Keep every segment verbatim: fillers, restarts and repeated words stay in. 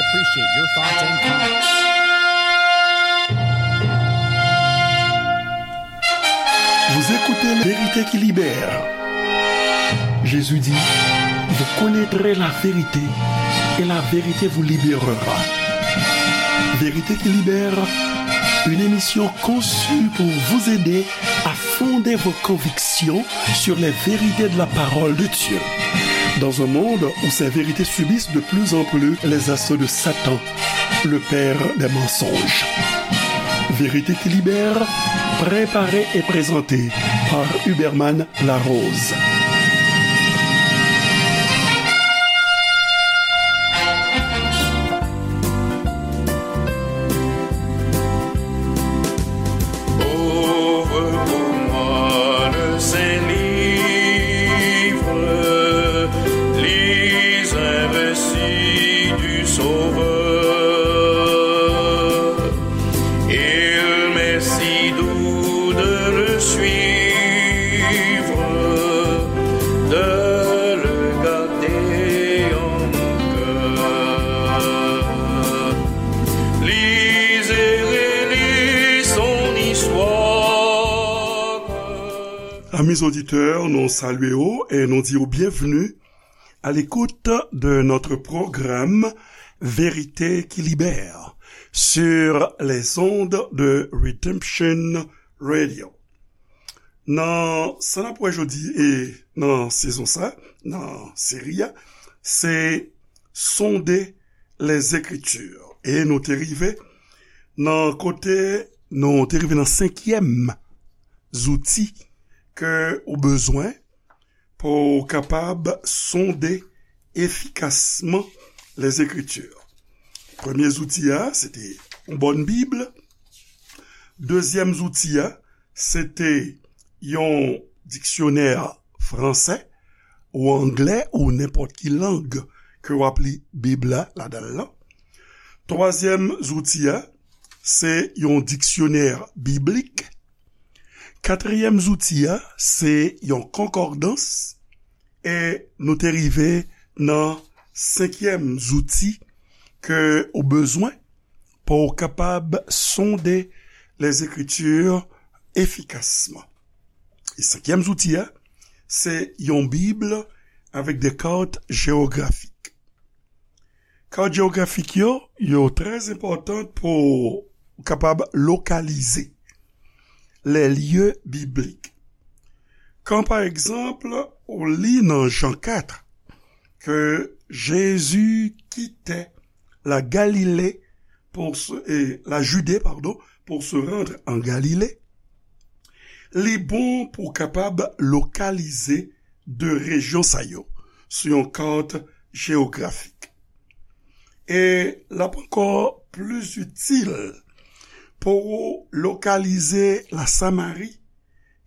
Appreciate your thoughts and comments. Vous écoutez La Vérité qui libère. Jésus dit, vous connaîtrez la vérité et la vérité vous libérera. Vérité qui libère, une émission conçue pour vous aider à fonder vos convictions sur les vérités de la parole de Dieu. Dans un monde où ces vérités subissent de plus en plus les assauts de Satan, le père des mensonges. Vérité qui libère, préparée et présentée par Huberman Larose. Ouvre pour moi le Saint-Livre, lis un récit du Sauveur. Il m'est si doux de le suivre, de le garder en mon cœur. Lis et relis son histoire. Amis auditeurs, nous saluons et nous disons bienvenue à l'écoute de notre programme Vérité qui libère sur les ondes de Redemption Radio. Nan sa n ap wè jodi e nan sezon sa, nan seri a, se Sonder les Écritures. E nou te rive nan kote, nou te rive nan senkyèm zouti ke ou bezwen pou w kapab sonde efikasman Lèzekritye. Premye zouti a, se te yon bòn Bib. Dezyèm zouti a, se te yon diksyonè fransè ou anglè ou nenpòt ki lang ke w ap li Bib la ladan l lan. Twazyèm zouti a, se yon diksyonè biblik. Katriyèm zouti a, se yon konkòdans. E nou te rive nan senkyèm zouti ke ou bezwen pou w kapab sonde Lèzekritye efikasman. E senkyèm zouti a, se yon Bib avèk de kat jewografik. Kat jewografik yo, yo trè enpòtan pou w kapab lokalize les lieux bibliques. Kan, pa egzanp, ou li nan Jan kat ke Jezi kite la Galilée pour se, eh, la Judée, pardon, pour se rendre en Galilée, li bon pou w kapab lokalize de rejyon sa yo sou yon kat jewografik. E l ap ankò plis itil pou w lokalize la Samari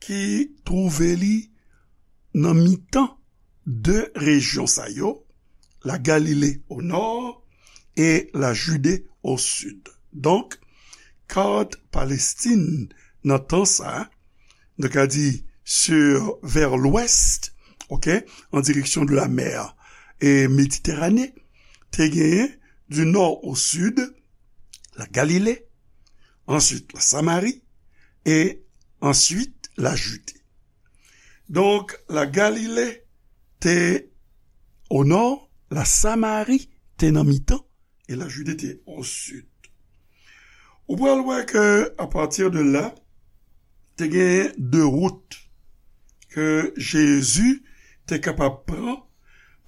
ki twouve li nan mitan de rejyon sa yo, la Galilée au nord et la Judée au sud. Donk, kat Palestin nan tan sa, nou ka di sur, vers l'ouest, ok, en direction de la mer et Méditerranée, te genyen du nord au sud, la Galilée, ensuite la Samarie et ensuite la Judée. Donk, la Galilée te au nord, la Samarie te nan mitan, et la Judée te au sud. Ou pral wè ke, a pati de la, te gen de wout ke Jezi te kapab pran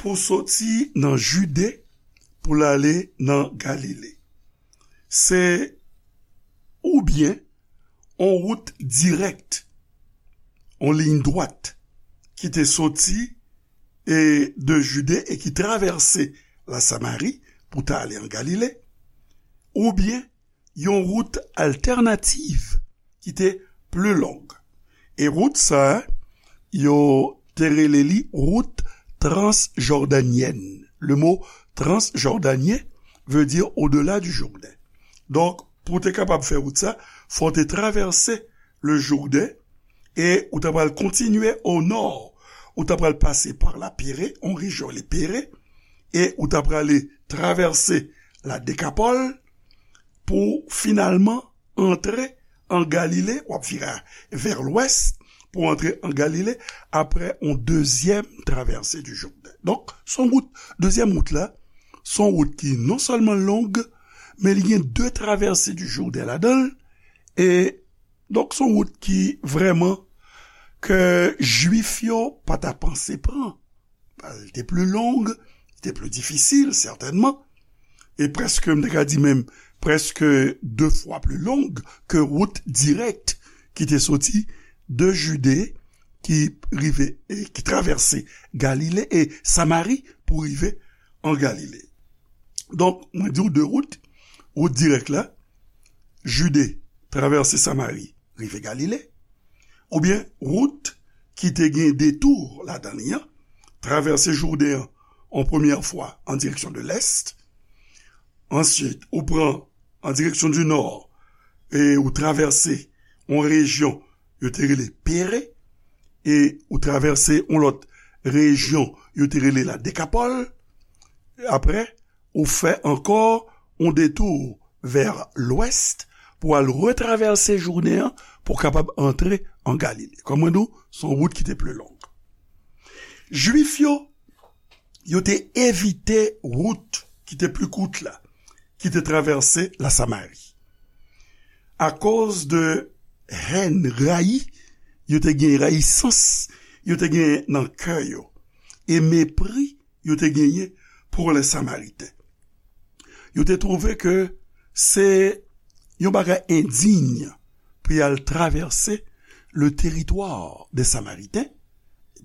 pou soti nan Jide pou l ale nan Galile. Se oubyen on wout dirèk, on liy dwat ki te soti e de Jide e ki travèse la Samari pou ta ale an Galile, oubyen yon wout altènativ ki te pli long. E wout sa a, yo te rele li wout transjòdanyèn. Le mot transjordanien veut dire au-delà du Jourdain. Donk, pou w te kapab fè wout sa, fò w te travèse le Jourdain e ou ta pral kontinye o nò. Ou ta pral pase pa la Pere, on rejyon rele Pere, e ou ta prale travèse la Dekapòl pou finalman antre an Galile, w ap vire vè lwès pou antre an Galile apre yon dezyèm travèse di Jouden. Donk, se yon wout, dezyèm wout la, se yon wout ki non sèlman long, men li gen de travèse di Jouden ladan l, e donk se yon wout ki vrèman ke Jwif yo pa ta panse pran. Li te pli long, li te pli difisil, sètènman, e prèske, m te ka di menm, prèske de fwa pli long ke wout dirèk ki te soti de Jide, ki rive, e ki travèse Galile e Samari pou rive an Galile. Donk, mwen di w de wout, wout dirèk la, Jide, travèse Samari, rive Galile, oubyen wout ki te gen detou ladan li an, travèse Jouden an, yon premyè fwa an direksyon de lès, answit, ou pran an direksyon di nò, e ou travèse yon rejyon yo te rele Pere, e ou travèse yon lòt rejyon yo te rele la Dekapòl, apre, ou fè ankò yon detou vè lwès pou al retravèse Jouden an pou kapab antre an Galile. Kòm mwen di w, se yon wout ki te pli long. Jwif yo, yo te evite wout ki te pli kout la, ki te travèse la Samari. Akoz de hèn, rayi, yo te gen rayisans, yo te gen nan kè yo, e mepri yo te genyen pou lè Samariten. Yo te twouve ke se yon bagay endiy pou y al travèse le teritwa de Samariten,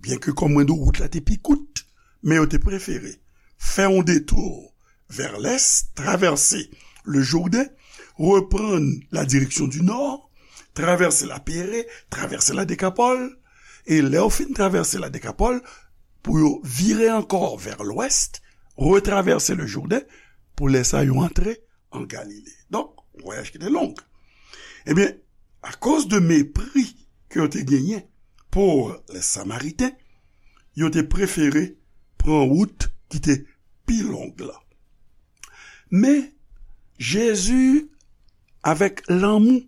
byenke, kòm mwen di w, wout la te pi kout, men yo te prefere fè yon detou vè lès, travèse le Jouden, reprann la direksyon di nò, travèse la Pere, travèse la Dekapòl, e lè yo fin travèse la Dekapòl, pou yo vire ankò vè lwès, retravèse le Jouden, pou lè sa yo antre an Galile. Donk, vwayaj ki te long. Ebyen, akoz de mepri ke yo te genyen pou lè Samariten, yo te prefere pran wout ki te pi long la. Men, Jezi, avèk lanmou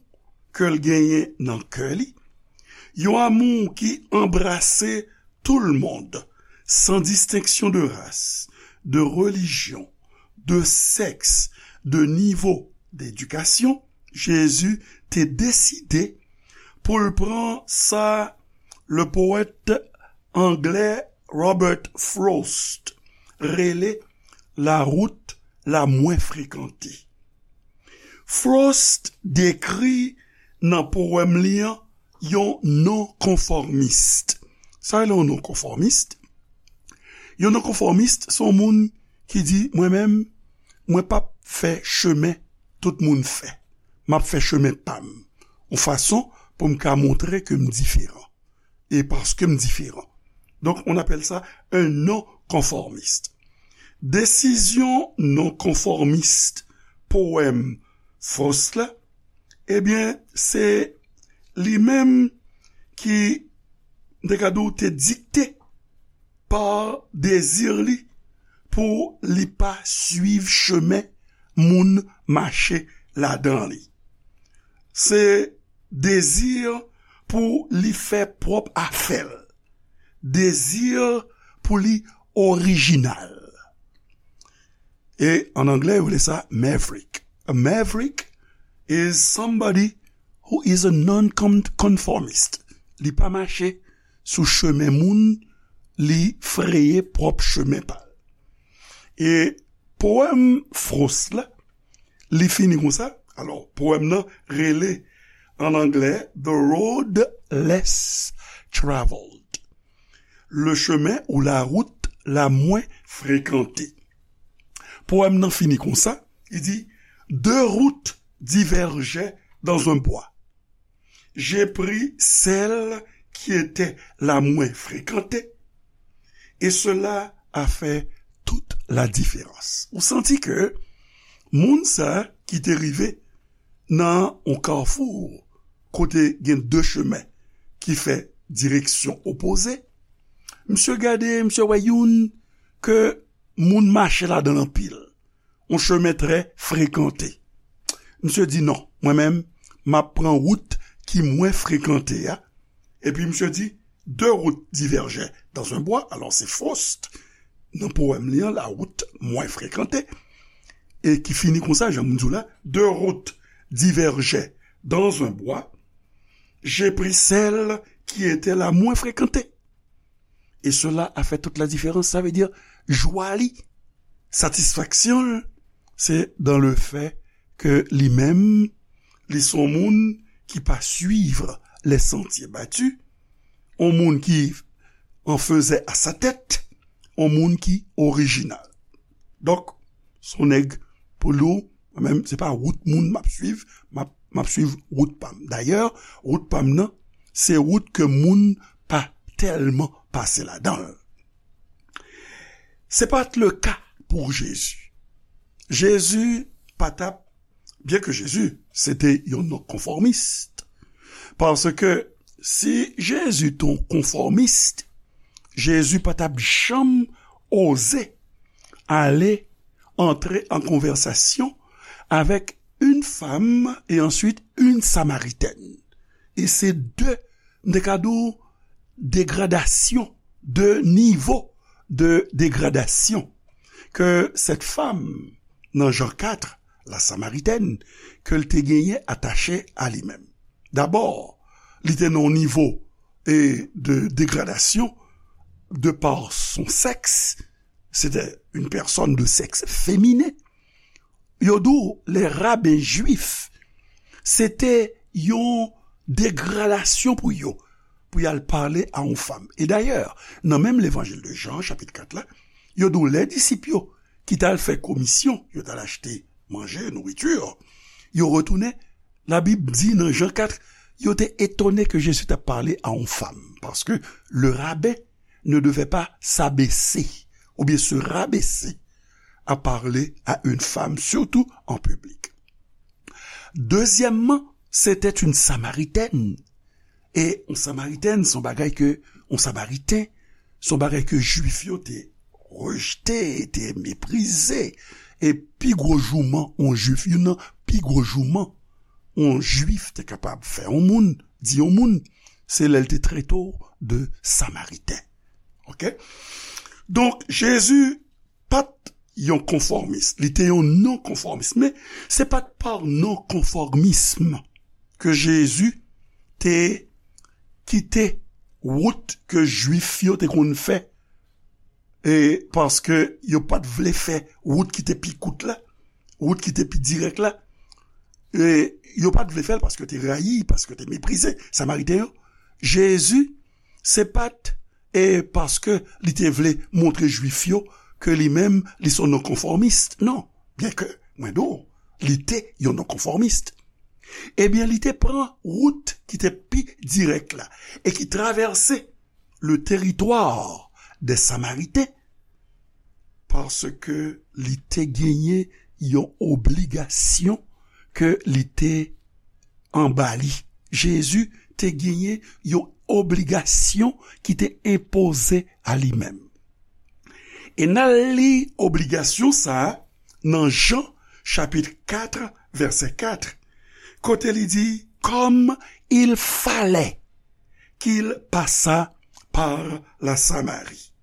ke l genyen nan kè li, yon amou ki anbrase tout le monde, san distenksyon de ras, de relijyon, de sèks, de nivo dedikasyon, Jezi te deside pou l pran sa le powèt anglè Robert Frost rele la wout la mwen frekante. Frost dekri nan powèm li an yon nonkonfòmis. Sa rele yon nonkonfòmis? Yon nonkonfòmis, se yon moun ki di, mwen menm, mwen p ap fè chemen tout moun fè. M ap fè chemen pa m. Yon fason pou m ka montre ke m diferan. E paske m diferan. Donk, on appelle ça un non-conformiste. Desizyon nonkonfòmis powèm Frost la, ebyen, se li menm ki, m te ka di w, te dikte pa dezi li pou li pa swiv chemen moun mache ladan li. Se dezi pou li fè pwòp afè l. Dezi pou li orijinal. E an anglè, yo rele sa maverick. A maverick is somebody who is a non-conformist. Li pa mache sou chemen moun, li freye pwòp chemen pa l. E powèm Frost la, li fini konsa. Alò, powèm nan rele an anglè The Road Less Traveled. Le chemin ou la route la moins fréquentée. Powèm nan fini konsa, li di, deux routes divergeaient dans un bois. J'ai pris celle qui était la moins fréquentée, et cela a fait toute la différence. Ou santi ke moun sa ki te rive nan yon kafou kote gen de chemen ki fè direksyon opoze, misye gade, misye wè youn ke moun mache ladan l anpil. un chemin très fréquenté. Misye di, non, mwen menm, m ap pran wout ki mwen frekante a. Epi misye di, deux routes divergeaient dans un bois. Alò, se Faust, nan powèm li an, La route moins fréquentée, e ki fini konsa, jan m di w la, deux routes divergeaient dans un bois. J'ai pris celle qui était la moins fréquentée. Et cela a fait toute la différence. Sa vle di, jwa li, satisfaksyon l, se dans le fait que li menm, li se yon moun ki pa suiv les sentiers battus, yon moun ki en faisait à sa tête, yon moun ki orijinal. Donk, se yon nèg pou li, mwen menm, se pa wout moun m ap suiv, m ap, m ap suiv wout pa m. Dayè, wout pa m nan, se wout ke moun pa tèlman pase ladan l. Se pa t le ka pou Jezi. Jezi pa t ap, byen ke Jezi se te yon nonkonfòmis, paske si Jezi te yon konfòmis, Jezi pa t ap janm oze ale antre an konvèsasyon avèk une femme et ensuite une Samaritaine. E se de, m te ka di w, degradasyon, de nivo de degradasyon ke cette femme nan Jan kat, la Samaritaine, ke l te genyen atache a li menm. Dabò, li te nan yon nivo, e, de degradasyon de par son sexe, c'était une personne de sexe féminin. Yo di w, les rabbins juifs, se te yon degradasyon pou yo, pou y al pale a yon fanm. E dayè, nan menm levanjil de Jan, chapit kat la, yo di w, lè disip yo ki t al fè komisyon, yo t al achte manje, nouriti, yo retounen, Labib di nan Jan kat, yo te etone ke Jezi t ap pale a yon fanm, paske le rabbin ne devait pas s'abaisser, oubyen se rabaisser, à parler à une femme, surtout en public. Dezyèmman, c'était une Samaritaine. E yon Samaritèn, se yon bagay ke, yon Samariten, se yon bagay ke Jwif yo te rejte, te meprize. E pi gwo jouman yon Jwif, youn nan pi gwo jouman yon Jwif te kapab fè yon moun, di yon moun, se lè l te trete w de Samariten. Oke? Donk, Jezi pa t yon konfòmis, li te yon non-konfòmis. Men, se pa t pa non-konfòmism ke Jezi te kite wout ke Jwif yo te konn fè, e paske yo pa t vle fè wout ki te pi kout la, wout ki te pi dirèk la, e yo pa t vle fè l paske yo te rayi, paske yo te meprize Samariten yo. Jezi, se pa t e paske li te vle montre Jwif yo ke li menm, li se yon non-konfòmis. Non, byenke, mwen di w, li te yon non-konfòmis. Ebyen, li te pran wout ki te pi dirèk la e ki travèse le teritwa dè Samariten, paske li te genyen yon obligasyon ke li te anba li. Jezi te genyen yon obligasyon ki te enpoze a li menm. E n al li obligasyon sa a nan Jan, chapit kat, vèsè kat, kote li di, comme il fallait qu'il passât par la Samarie.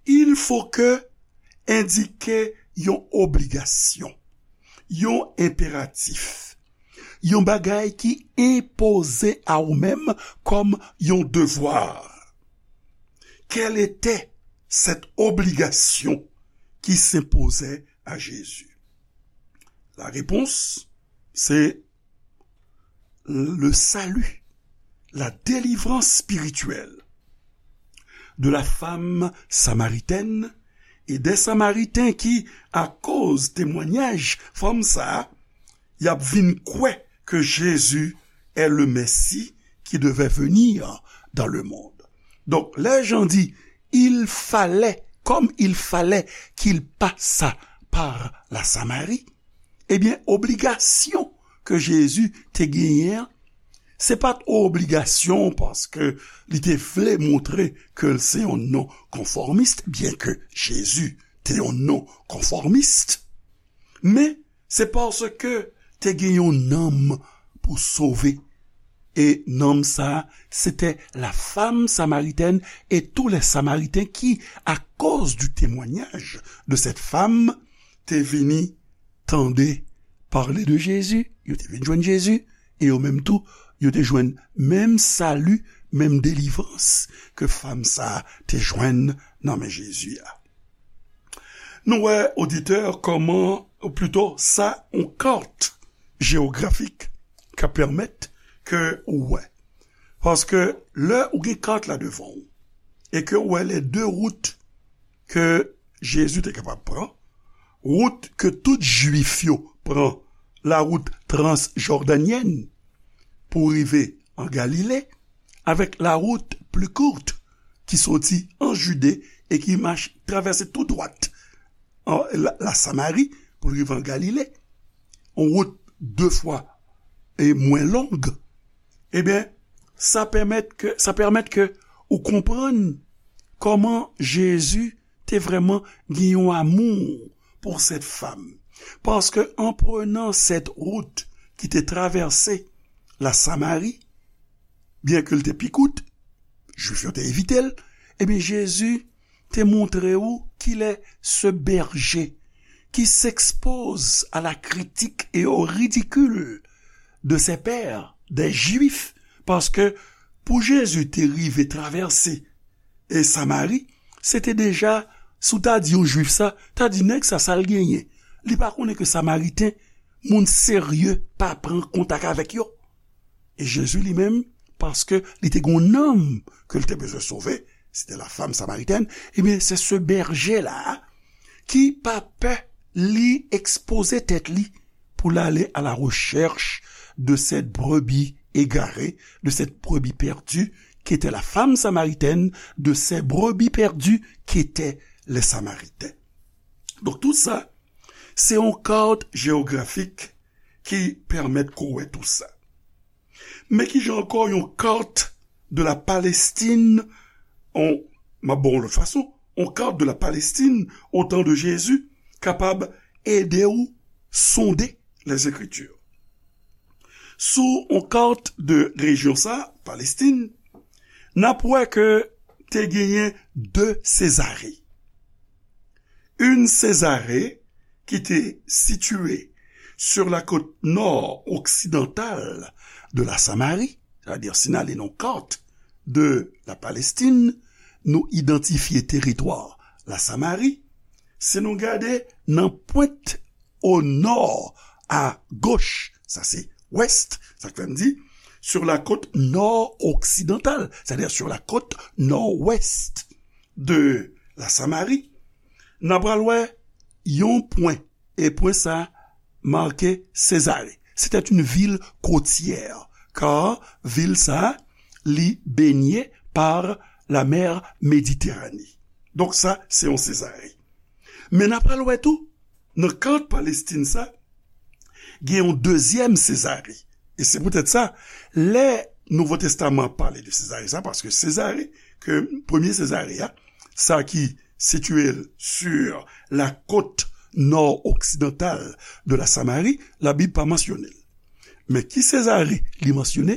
Il faut que endike yon obligasyon, yon enperatif, yon bagay ki enpoze a ou menm kòm yon devwa. Quelle était cette obligation qui s'imposait à Jésus? La réponse, c'est le salut, la délivrance spirituelle de la femme samaritaine et des Samaritains qui, akoz temwanyaj fanm sa a, y ap vin kwè ke Jezi est le Messie qui devait venir dans le monde. Donk, lè Jan di, il fallait, comme il fallait qu'il passât par la Samarie, ebyen, obligasyon ke Jezi te genyen an, se pa t obligasyon paske li te vle montre ke l se yon non-konfòmis, byenke Jezi te yon non-konfòmis. Men, se paske te gen yon nanm pou sove. E nanm sa a, se te la femme samaritaine et tous les Samaritains qui, à cause du témoignage de cette femme, te vini tande pale de Jezi, yo te vin jwenn Jezi, e yo menm tou, yo te jwenn menm sali, menm delivrans ke fam sa a te jwenn nan men Jezi a. Nou wè, oditè, kòman, ou plito, sa, yon kat jewografik ka pèmèt ke ou wè. Paske lè ou gen kat la devan ou, e ke ou wè les deux routes ke Jezi te kapab pran, wout ke tout Jwif yo pran, la wout transjòdanyèn pou rive an Galile, avèk la wout pli kout ki soti an Jide e ki mach travèse tou dwat an, la, la Samari pou rive an Galile, yon wout de fwa e mwen long, ebyen, sa pèmèt ke, sa pèmèt ke ou konprann kòman Jezi te vrèman gen yon amou pou cette femme. Paske an prenan cette route ki te travèse la Samari, byen ke l te pi kout, Jwif yo te evite l, ebyen, Jezi te montre ou qu'il est ce berger qui s'expose à la critique et au ridicule de ses pairs, des Juifs, paske pou Jezi te rive travèse e Samari, se te deja, si w ta di yon Jwif sa, ta di nèg sa, sa l genyen. Li pa konnen ke Samariten, moun serye, pa pran kontak avèk yo. E Jezi li menm, paske li te gen yon nanm ke l te bezwen sove, se te la femme samaritaine, ebyen, se ce berger la ki pa pè li ekspoze tèt li pou l ale à la recherche de cette brebis égarée, de cette brebis perdue, qui était la femme samaritaine, de ces brebis perdues qui étaient les Samaritains. Donk, tout sa, se yon kat jewografik ki pèmèt ke w wè tout sa. Men kijan ankò yon kat de la Palestine, on, m ap ba w yon lòt fason, yon kat de la Palestine au temps de Jésus kapab ede w sonde les Écritures. Sou yon kat de rejyon sa, Palestine, n ap wè ke te genyen de Sezare. Une Césarée qui était située sur la côte nord-occidentale de la Samarie, c'est-à-dire si n ale nan kat de la Palestine, nou idantifye teritwa la Samari, si nou gade nan pwent au nord, à gauche, sa se wès, sa k fè m di, sur la côte nord-occidentale, c'est-à-dire sur la côte nord-ouest de la Samarie, n a pral wè yon pwen, e pwen sa make Césarée. C'était une ville côtière, car vil sa li baignée par la mer Méditerranée. Donk sa, se yon Césarée. Men n a pral wè tou, nan kat Palestine sa, gen yon dezyèm Césarée. E se poutèt sa, lè Nouvo Testaman ap pale de Césarée sa, paske Césarée, ke premye Césarée a, sa ki sitiye l sur la côte nord-occidentale de la Samarie, Labib pa mansyone l. Men ki Césarée li mansyone?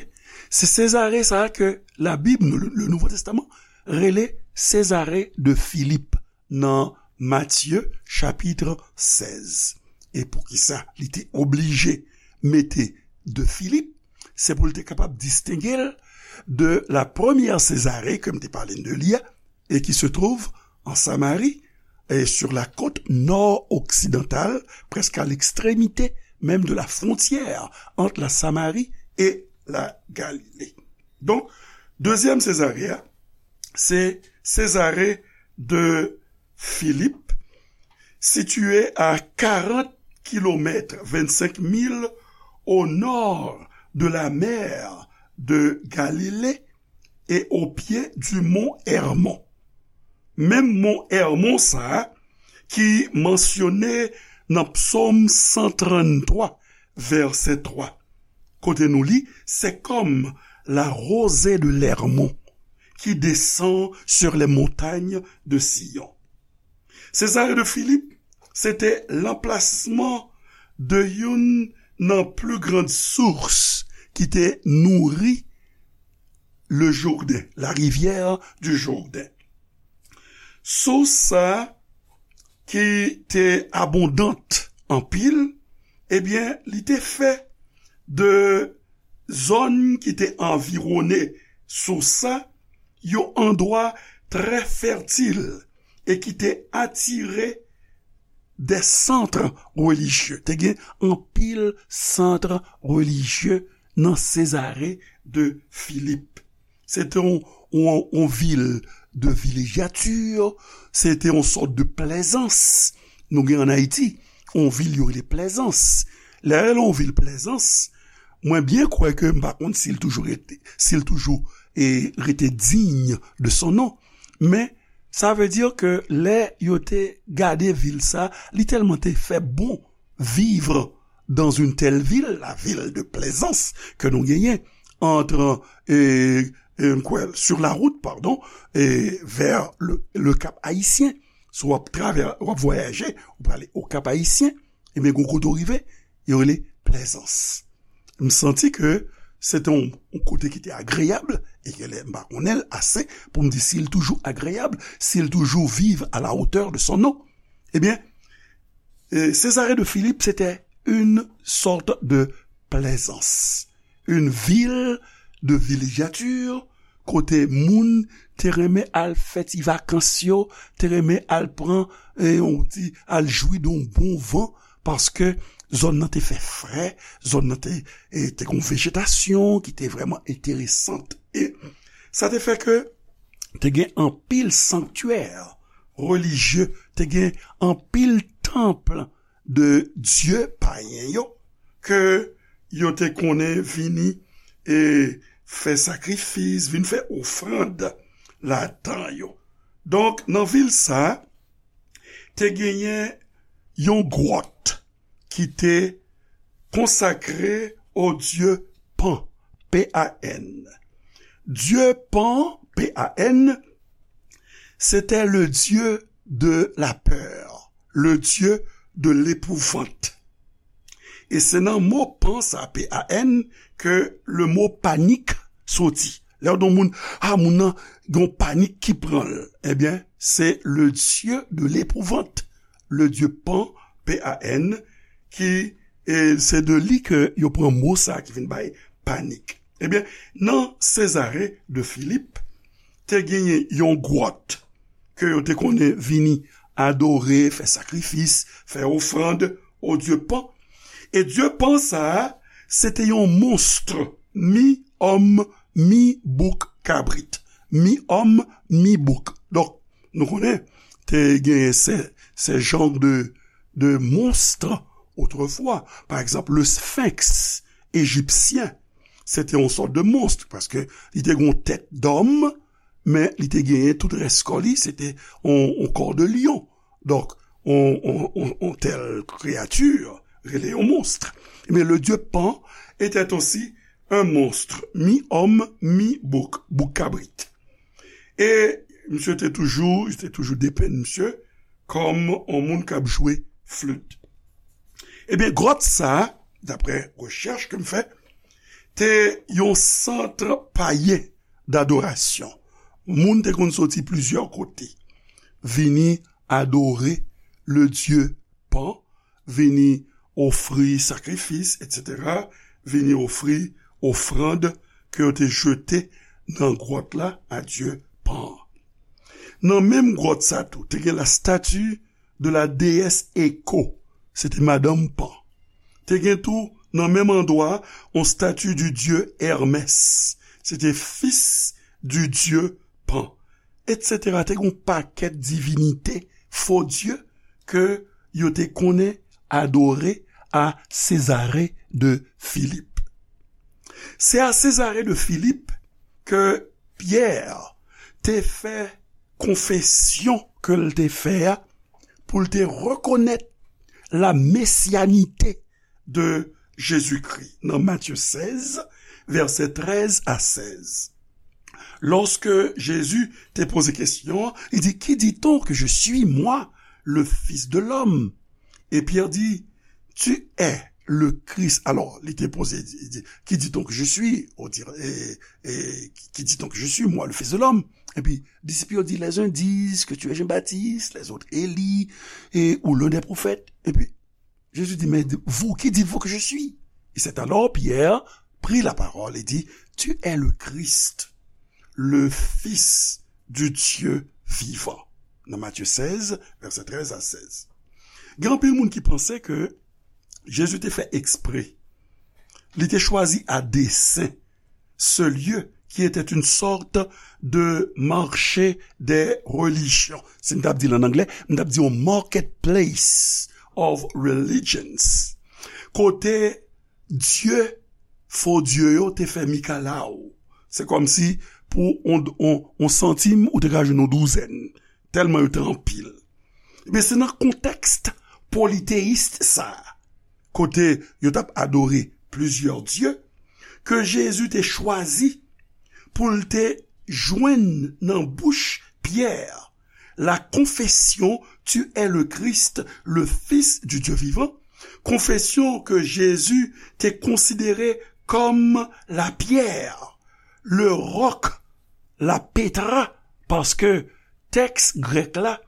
Se Césarée sa a ke Labib, le, le Nouveau Testament, rele Césarée de Philippe nan Matye chapit sèz. E poukisa li te oblije mete de Philippe? Se pou l te kapab distenge l de la première Césarée ke m te pale de li a, et qui se trouve en Samarie, et sur la côte nord-occidentale, presque à l'extrémité même de la frontière entre la Samarie et la Galilée. Donk, dezyèm Césarée a, se Césarée de Philippe, située à quarante kilomètres, vingt-cinq milles, au nord de la mer de Galilée et au pied du mont Hermon. Menm mont Hermon sa a ki mansyone nan Psaume cent trente-trois, verset trois. Kote nou li, c'est comme la rosée de l'Hermon qui descend sur les montagnes de Sion. Césarée de Philippe, se te l anplasman de youn nan pli grann sous ki te nouri le Jourdain, la rivière du Jourdain. Sous sa ki te abondant anpil, ebyen, li te fè de zòn ki te anviwone sous sa yon andwa trè fètil e ki te atire de sant relijye. Te gen anpil sant relijye nan Césarée de Philippe. Se te yon, yon, yon vil de vilejati, se te yon sòt de plèzans. Nou gen ann Ayiti, yon vil yo rele Plèzans. Lè yo rele yon vil Plèzans, mwen byen kwè ke m pa konn si l toujou rete, si l toujou, e, rete digne de son nom. Men, sa vle di ke lè yo te gade vil sa, li tèlman te fè bon vivre dans une telle ville, la ville de Plaisance ke nou genyen entre, e, e, kwè, sur la route, pardon, e, vers le, le Cap Haïtien. Si w ap travè, w ap vwayaje, ou prale o Cap Haïtien, ebyen, gon kote w rive, yo rele Plaisance. M santi ke se te yon, yon kote ki te agreyab, e ke lè m pa konnen l ase pou m di si l toujou agreyab, si l toujou viv à la hauteur de son nom. Ebyen, e, Césarée de Philippe, se te une sorte de Plaisance, une ville de villégiature, kote moun te renmen al fè ti vakans yo, te renmen al pran, e, yon ti, al jwi de yon bon van, paske zòn nan te fè frè, zòn nan te, e, te gon vejetasyon ki te vrèman enteresant. E sa te fè ke te gen anpil sanktyè relijye, te gen anpil tanp de dye payen yo, ke yo te konnen vini e fè sakrifis, vin fè ofrann ladan yo. Donk, nan vil sa, te genyen yon gwòt ki te konsakre o dye Pan, P A N. Dye Pan, P A N, c'était le dieu de la peur, le dieu de l'épouvante. E se nan mo Pan sa, P A N, ke le mo panik soti. Lè w di yon moun, a, moun nan gen yon panik ki pran l, ebyen, se le dieu de l'épouvante, le dieu Pan, P A N, ki, e se de li ke yo pran mo sa ki vin bay panik. Ebyen, nan Césarée de Philippe, te genyen yon gwòt ke yo te konnen vini adore, fè sakrifis, fè ofrann o dye Pan. E dye Pan sa a, se te yon monst, mi òm, mi bouk kabrit. Mi òm, mi bouk. Donk, nou konnen, te genyen se, se jan de, de monst otrefwa. Pa egzanp, le sphinx égyptien, se te yon sòt de monst, paske li te gen yon tèt dòm, men li te genyen tout rès kò li, se te yon, yon kò de lyon. Donk, yon, yon, yon, yon tèl kreyati, rele yon monst. Men le dieu Pan était aussi un monstre, mi-homme, mi-bouc, bouk kabrit. E misye te toujou, li te toujou depenn misye kòm yon moun k ap jwe flit. Ebyen, gwòt sa a, daprè rechèch ke m fè, te yon sant payen dadorasyon. Moun te konn soti plizyè kote, vini adore le dye Pan, vini ofri sakrifis, etsetera, vini ofri ofrann ke yo te jete nan gwòt la a dye Pan. Nan menm gwòt sa tou, te gen la statue de la déesse Echo, se te madanm Pan. Te gen tou, nan menm andwa, yon statue du dieu Hermès, se te fis du dieu Pan, etsetera. Te gen yon pakèt divinite, fo dye, ke yo te konnen adore a Césarée de Philippe. Se a Césarée de Philippe ke Pyè te fè konfesyon ke l te fè a, pou l te rekonèt la mesianite de Jezikri nan Matye sèz, vèsè trèz a sèz. Lòske Jezi te poze kesyon an, li di, qui dit-on que je suis, moi, le Fils de l'homme? E Pyè di, Tu es le Christ. Alors, li te poze, li di, qui dit-on que je suis? On dirait, et, et, qui dit-on que je suis, moi, le Fils de l'homme? Epi, disip yo di, les uns disent que tu es Jean-Baptiste, les autres Élie, et, ou l'un des prophètes. Epi, Jésus dit, mais vous, qui dites-vous que je suis? Et c'est alors Pierre prit la parole et dit, tu es le Christ, le Fils du Dieu vivant. Nan Matthieu seize, verset treize à seize. Gen anpil moun ki panse ke Jezi te fè eksprè. Li te chwazi a desen ce lieu qui était une sorte de marché des religions. Si m t ap di l an anglè, m t ap di yon marketplace of religions. Kote dye, fo dye yo te fè mikalaw. Se kòmsi pou on, on, on santim, ou te ka jwenn yon douzèn. Tèlman yo te anpil. Ebyen, se nan kontèks politeyis sa a, kote yo t ap adore plizyè dye, ke Jezi te chwazi pou l te jwenn nan bouch Pyè la confession, tu es le Christ, le Fils du Dieu vivant, konfesyon ke Jezi te konsidere kòm la pierre, le roc, la petra, paske tèks grèk la,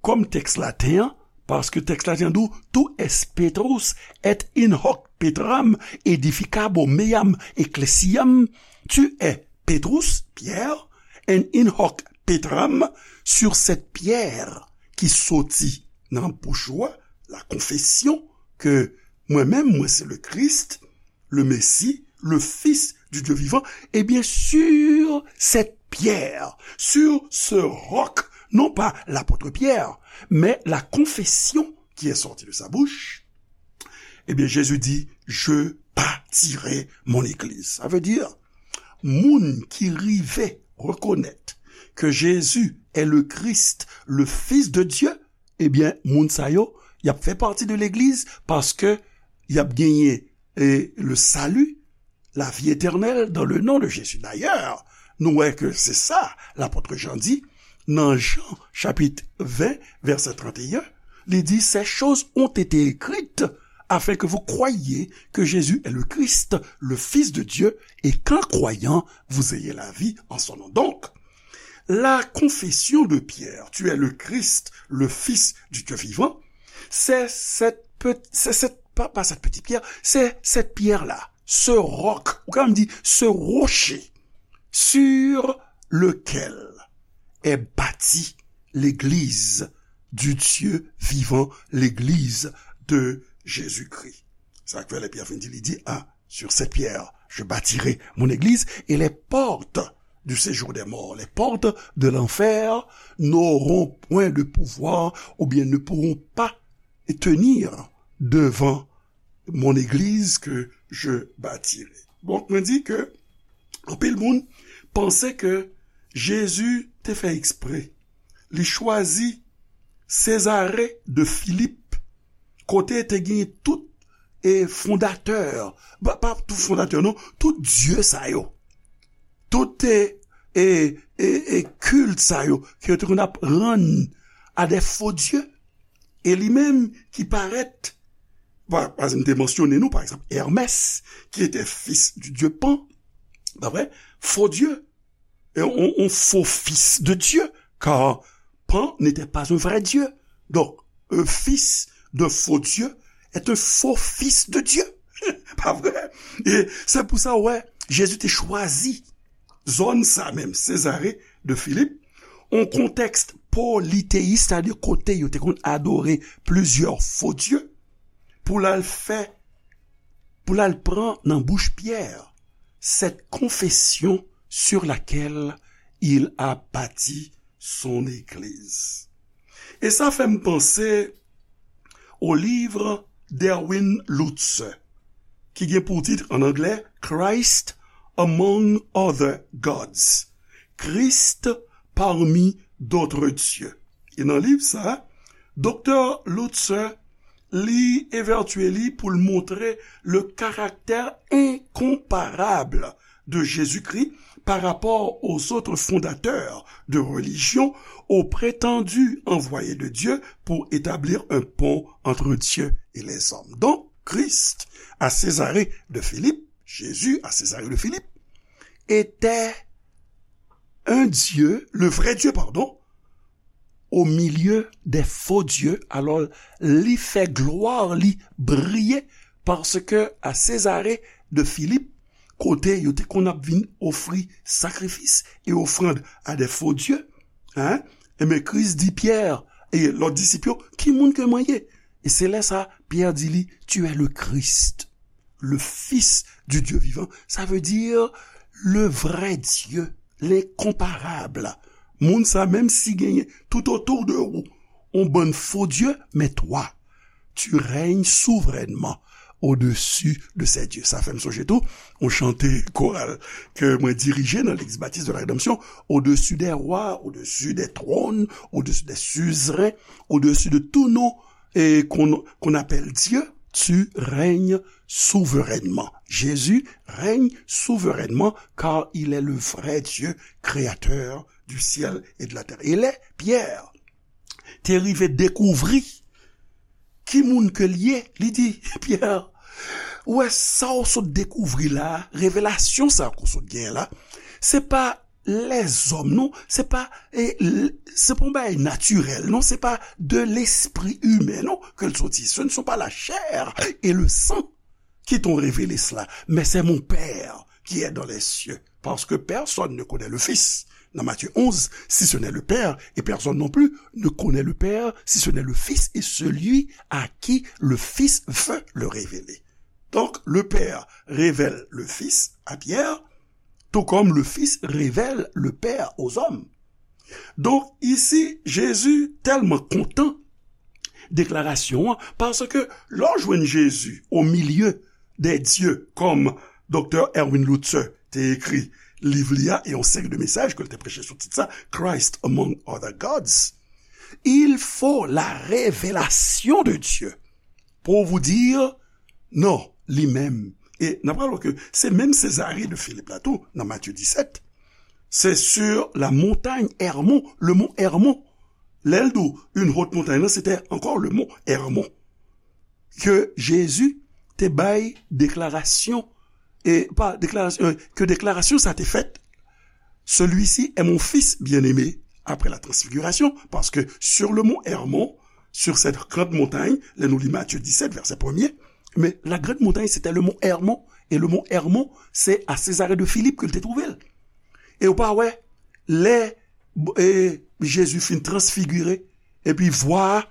kòm tèks laten an, paske tèks laten an di w, tu es Petrus, et in hoc petram edificabo meam ecclesiam, tu es Petrus, Pierre, and in hoc petram, sur cette pierre ki soti nan bouch ou a, la confession que mwen menm, mwen se le Christ, le Messie, le Fils du Dieu vivant, eh bien, sur cette pierre, sur ce roc, non pas l'apôtre Pierre, mais la confession qui est sortie de sa bouche, eh bien, Jésus dit, je bâtirai mon église. Ça veut dire, moun ki rive reconnaître que Jésus est le Christ, le Fils de Dieu, eh bien, moun sa yo, y ap fè pati de legliz paske y ap genyen, eh, le salut, la vie éternelle dans le nom de Jésus. D'ailleurs, nou wè ke se sa lapot Jan di nan Jan chapit ven, vèsè trannteyen, li di, ces choses ont été écrites afin que vous croyiez que Jésus est le Christ, le Fils de Dieu, et qu'en croyant, vous ayez la vie en son nom. Donc, la confession de Pierre, tu es le Christ, le Fils du Dieu vivant, c'est cette, pe- c'est cette, pas, pas cette petite pierre, c'est cette pierre-là, ce roc, ou ka menm di, ce rocher, sur lequel est bâtie l'église du Dieu vivant, l'église de Jésus-Christ. Sa k fè lè Pyè fin di, li di, ah, sur cette pierre, je bâtirai mon église, et les portes du séjour des morts, les portes de l'enfer n'auront point de pouvoir ou bien ne pourront pas tenir devant mon église que je bâtirai. Donk, mwen di ke anpil moun panse ke Jezi te fè eksprè. Li chwazi Césarée de Philippe, kote te gen tout e fondatè, pa, pa tout fondatè non, tout dye sa yo. Tout e, e, e, e kilt sa yo, ke yo te konn ap rann a de fo dye. E li menm ki parèt, pa, pa m te mansyone nou, pa egzanp, Hermès, ki te fis di dye Pan, pa vre? Fo dye, e, on, on faux fils de Dieu, car Pan n'était pas un vrai Dieu. Donc, un fils d'un faux Dieu est un faux fils de Dieu. Pa vre? E se pou sa, wè, Jezi te chwazi zòn sa menm, Césarée de Philippe, on kontèks politeyis, sètadi kote yo te konn adore plizyè fo dye, pou l al fè, pou l al pran nan bouch Pyè cette confession sur laquelle il a bâti son église. E sa fè m panse au livre d'Erwin Lutzer, ki gen pou tit an anglè Christ Among Other Gods, Christ parmi d'autres dieux. E nan liv sa, Doktè Lutzer li evètye li pou l montre le caractère incomparable de Jésus-Christ par rapport aux autres fondateurs de religion, aux prétendus envoyés de Dieu pour établir un pont entre Dieu et les hommes. Donc, Christ à Césarée de Philippe, Jésus à Césarée de Philippe, était un Dieu, le vrai Dieu, pardon, au milieu des faux dieux. Alò, li fè glwa li briye, paske a Césarée de Philippe, kote yo te konn ap vin ofri sakrifis e ofrann a de fo dye, hein? Enben, Kris di Pyè e lòt disip yo, "Ki moun ke mwen ye?" E se lè sa, Pyè di li, "Tu es le Christ, le Fils du Dieu vivant." Sa vle di, le vrai Dieu, l'incomparable. Moun sa, menm si genyen tout otou de ou, on bann fo dye, men twa, tu règnes souverainement au-dessus de ces dieux. Sa fè m sonje tou, on chante koral ke mwen dirije nan Legliz Batis de la Rédemption, au-dessus des rois, au-dessus des trônes, au-dessus des suzerains, au-dessus de tout nom et qu'on qu'on appelle Dieu, tu règnes souverainement. Jésus règne souverainement car il est le vrai Dieu, créateur du ciel et de la terre. E lè Pyè te rive dekouvri ki moun ke l ye, li di, "Pyè, ou wè sa w sot dekouvri la, revelasyon sa ke w sot genyen la, se pa lèzòm, non, se pa, e, l-, se pa yon bagay natirèl, non, se pa de lespri imen, non, ke l soti. Ce ne sont pas la chair et le sang qui t'ont révélé cela, mais c'est mon Père qui est dans les cieux. Parce que personne ne connaît le Fils." Dans Matthieu onze, si ce n'est le Père, et personne non plus ne connaît le Père si ce n'est le Fils et celui à qui le Fils veut le révéler. Donc, le Père révèle le Fils à Pierre, tout comme le Fils révèle le Père aux hommes. Donk, isi, Jezi tèlman kontan deklarasyon an, paske lè w jwenn Jezi au milieu des dieux, kòm Doktè Erwin Lutzer te ekri liv li a, e yon seri de mesaj ke l te preche sou tit sa, Christ Among Other Gods, il faut la révélation de Dieu pour vous dire, non, li menm. E n ap rapele ke se menm Césarée de Philippe la tou, nan Matthieu dix-sept, c'est sur la montagne Hermon, le mont Hermon. Lè l di w une haute montagne, non, c'était encore le mont Hermon. Ke Jezi te bay deklarasyon, e pa deklarasyon, euh, ke deklarasyon sa te fèt, celui-ci est mon fils bien-aimé, après la transfiguration, parce que sur le mont Hermon, sur cette grande montagne, lè nou li Matthieu dix-sept, verset premier, mais la grande montagne, c'était le mont Hermon, et le mont Hermon, c'est à Césarée de Philippe ke l te twouve l. E ou pa wè, lè, e, Jezi fin transfigire, epi vwa a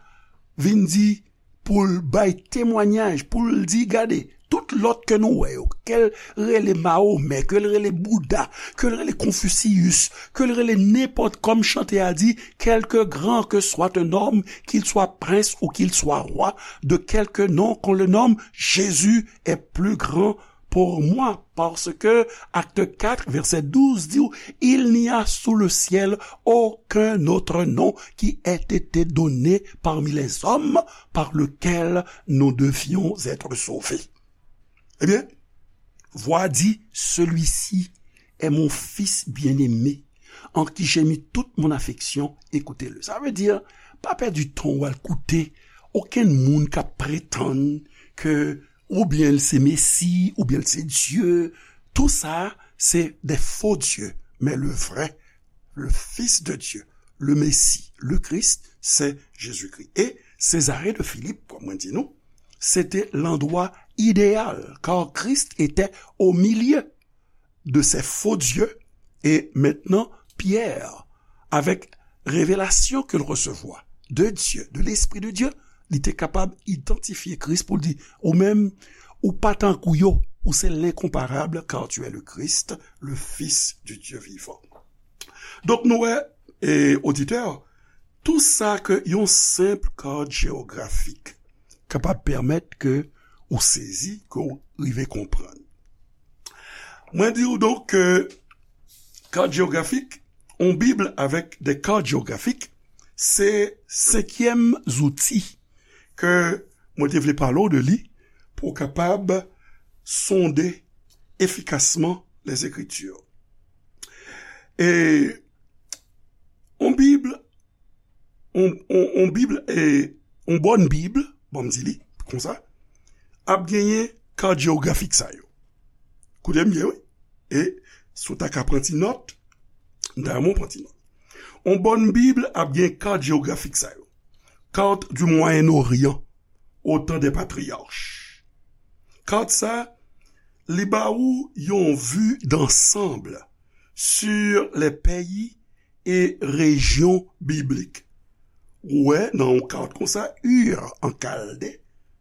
vin di, pou l bay temwanyaj, pou l di, gade, tout lòt ke nou wè yo, ke l rele Mahomè, ke l rele Bouda, ke l rele Konfisiyis, ke l rele nenpòt, kòm chante a di, quelque grand que soit un homme, qu'il soit prince ou qu'il soit roi, de quelque nom qu'on le nomme, Jésus est plus grand pour moi, parce que Acte quatre, verset douze di w, il n'y a sous le ciel aucun autre nom qui ait été donné parmi les hommes par lequel nous devions être sauvés. Ebyen, vwa di, celui-ci est mon fils bien-aimé, en qui j'ai mis toute mon affection, écoutez-le. Sa vle di, pa pèdi tan w al koute okenn moun k ap pretann ke oubyen l se Mesi, oubyen l se Dye. Tou sa, se de fo dye. Men le vrai, le Fils de Dieu, le Messie, le Christ, c'est Jésus-Christ. E Césarée de Philippe, kòm mwen di nou, se te landwa ideyal, car Christ était au milieu de ces faux dieux. Et maintenant, Pierre, avec révélation ke l resevwa de Dye, de Lespri de Dye, li te kapab idantifye Kris pou l di, ou menm, ou pa tankou yo, ou se lenkonparab, car tu es le Christ, le Fils du Dieu vivant. Donk, nou wè, e, oditè, tou sa ke yon senp kad jewografik kapab pèmèt ke ou sezi, ke ou rive konprann. Mwen di w donk ke kad jewografik, yon Bib avèk de kad jewografik, se senkyèm zouti ke mwen te vle pale w de li pou w kapab sonde efikasman les Écritures. E yon Bib, yon, yon, yon Bib, e yon bòn Bib, bon, m di li, konsa, ap genyen kat jewografik sa yo. Koute m byen, wi. E si w ta ka pran ti nòt, m ta renmen w pran ti nòt. On bòn Bib ap gen kat jewografik sa yo. Carte du Moyen-Orient, au temps des patriarches. Kat sa, li ba ou yon vue d'ensemble sur les pays e rejyon biblik. Ou wè nan yon kat konsa, Ur an Kalde.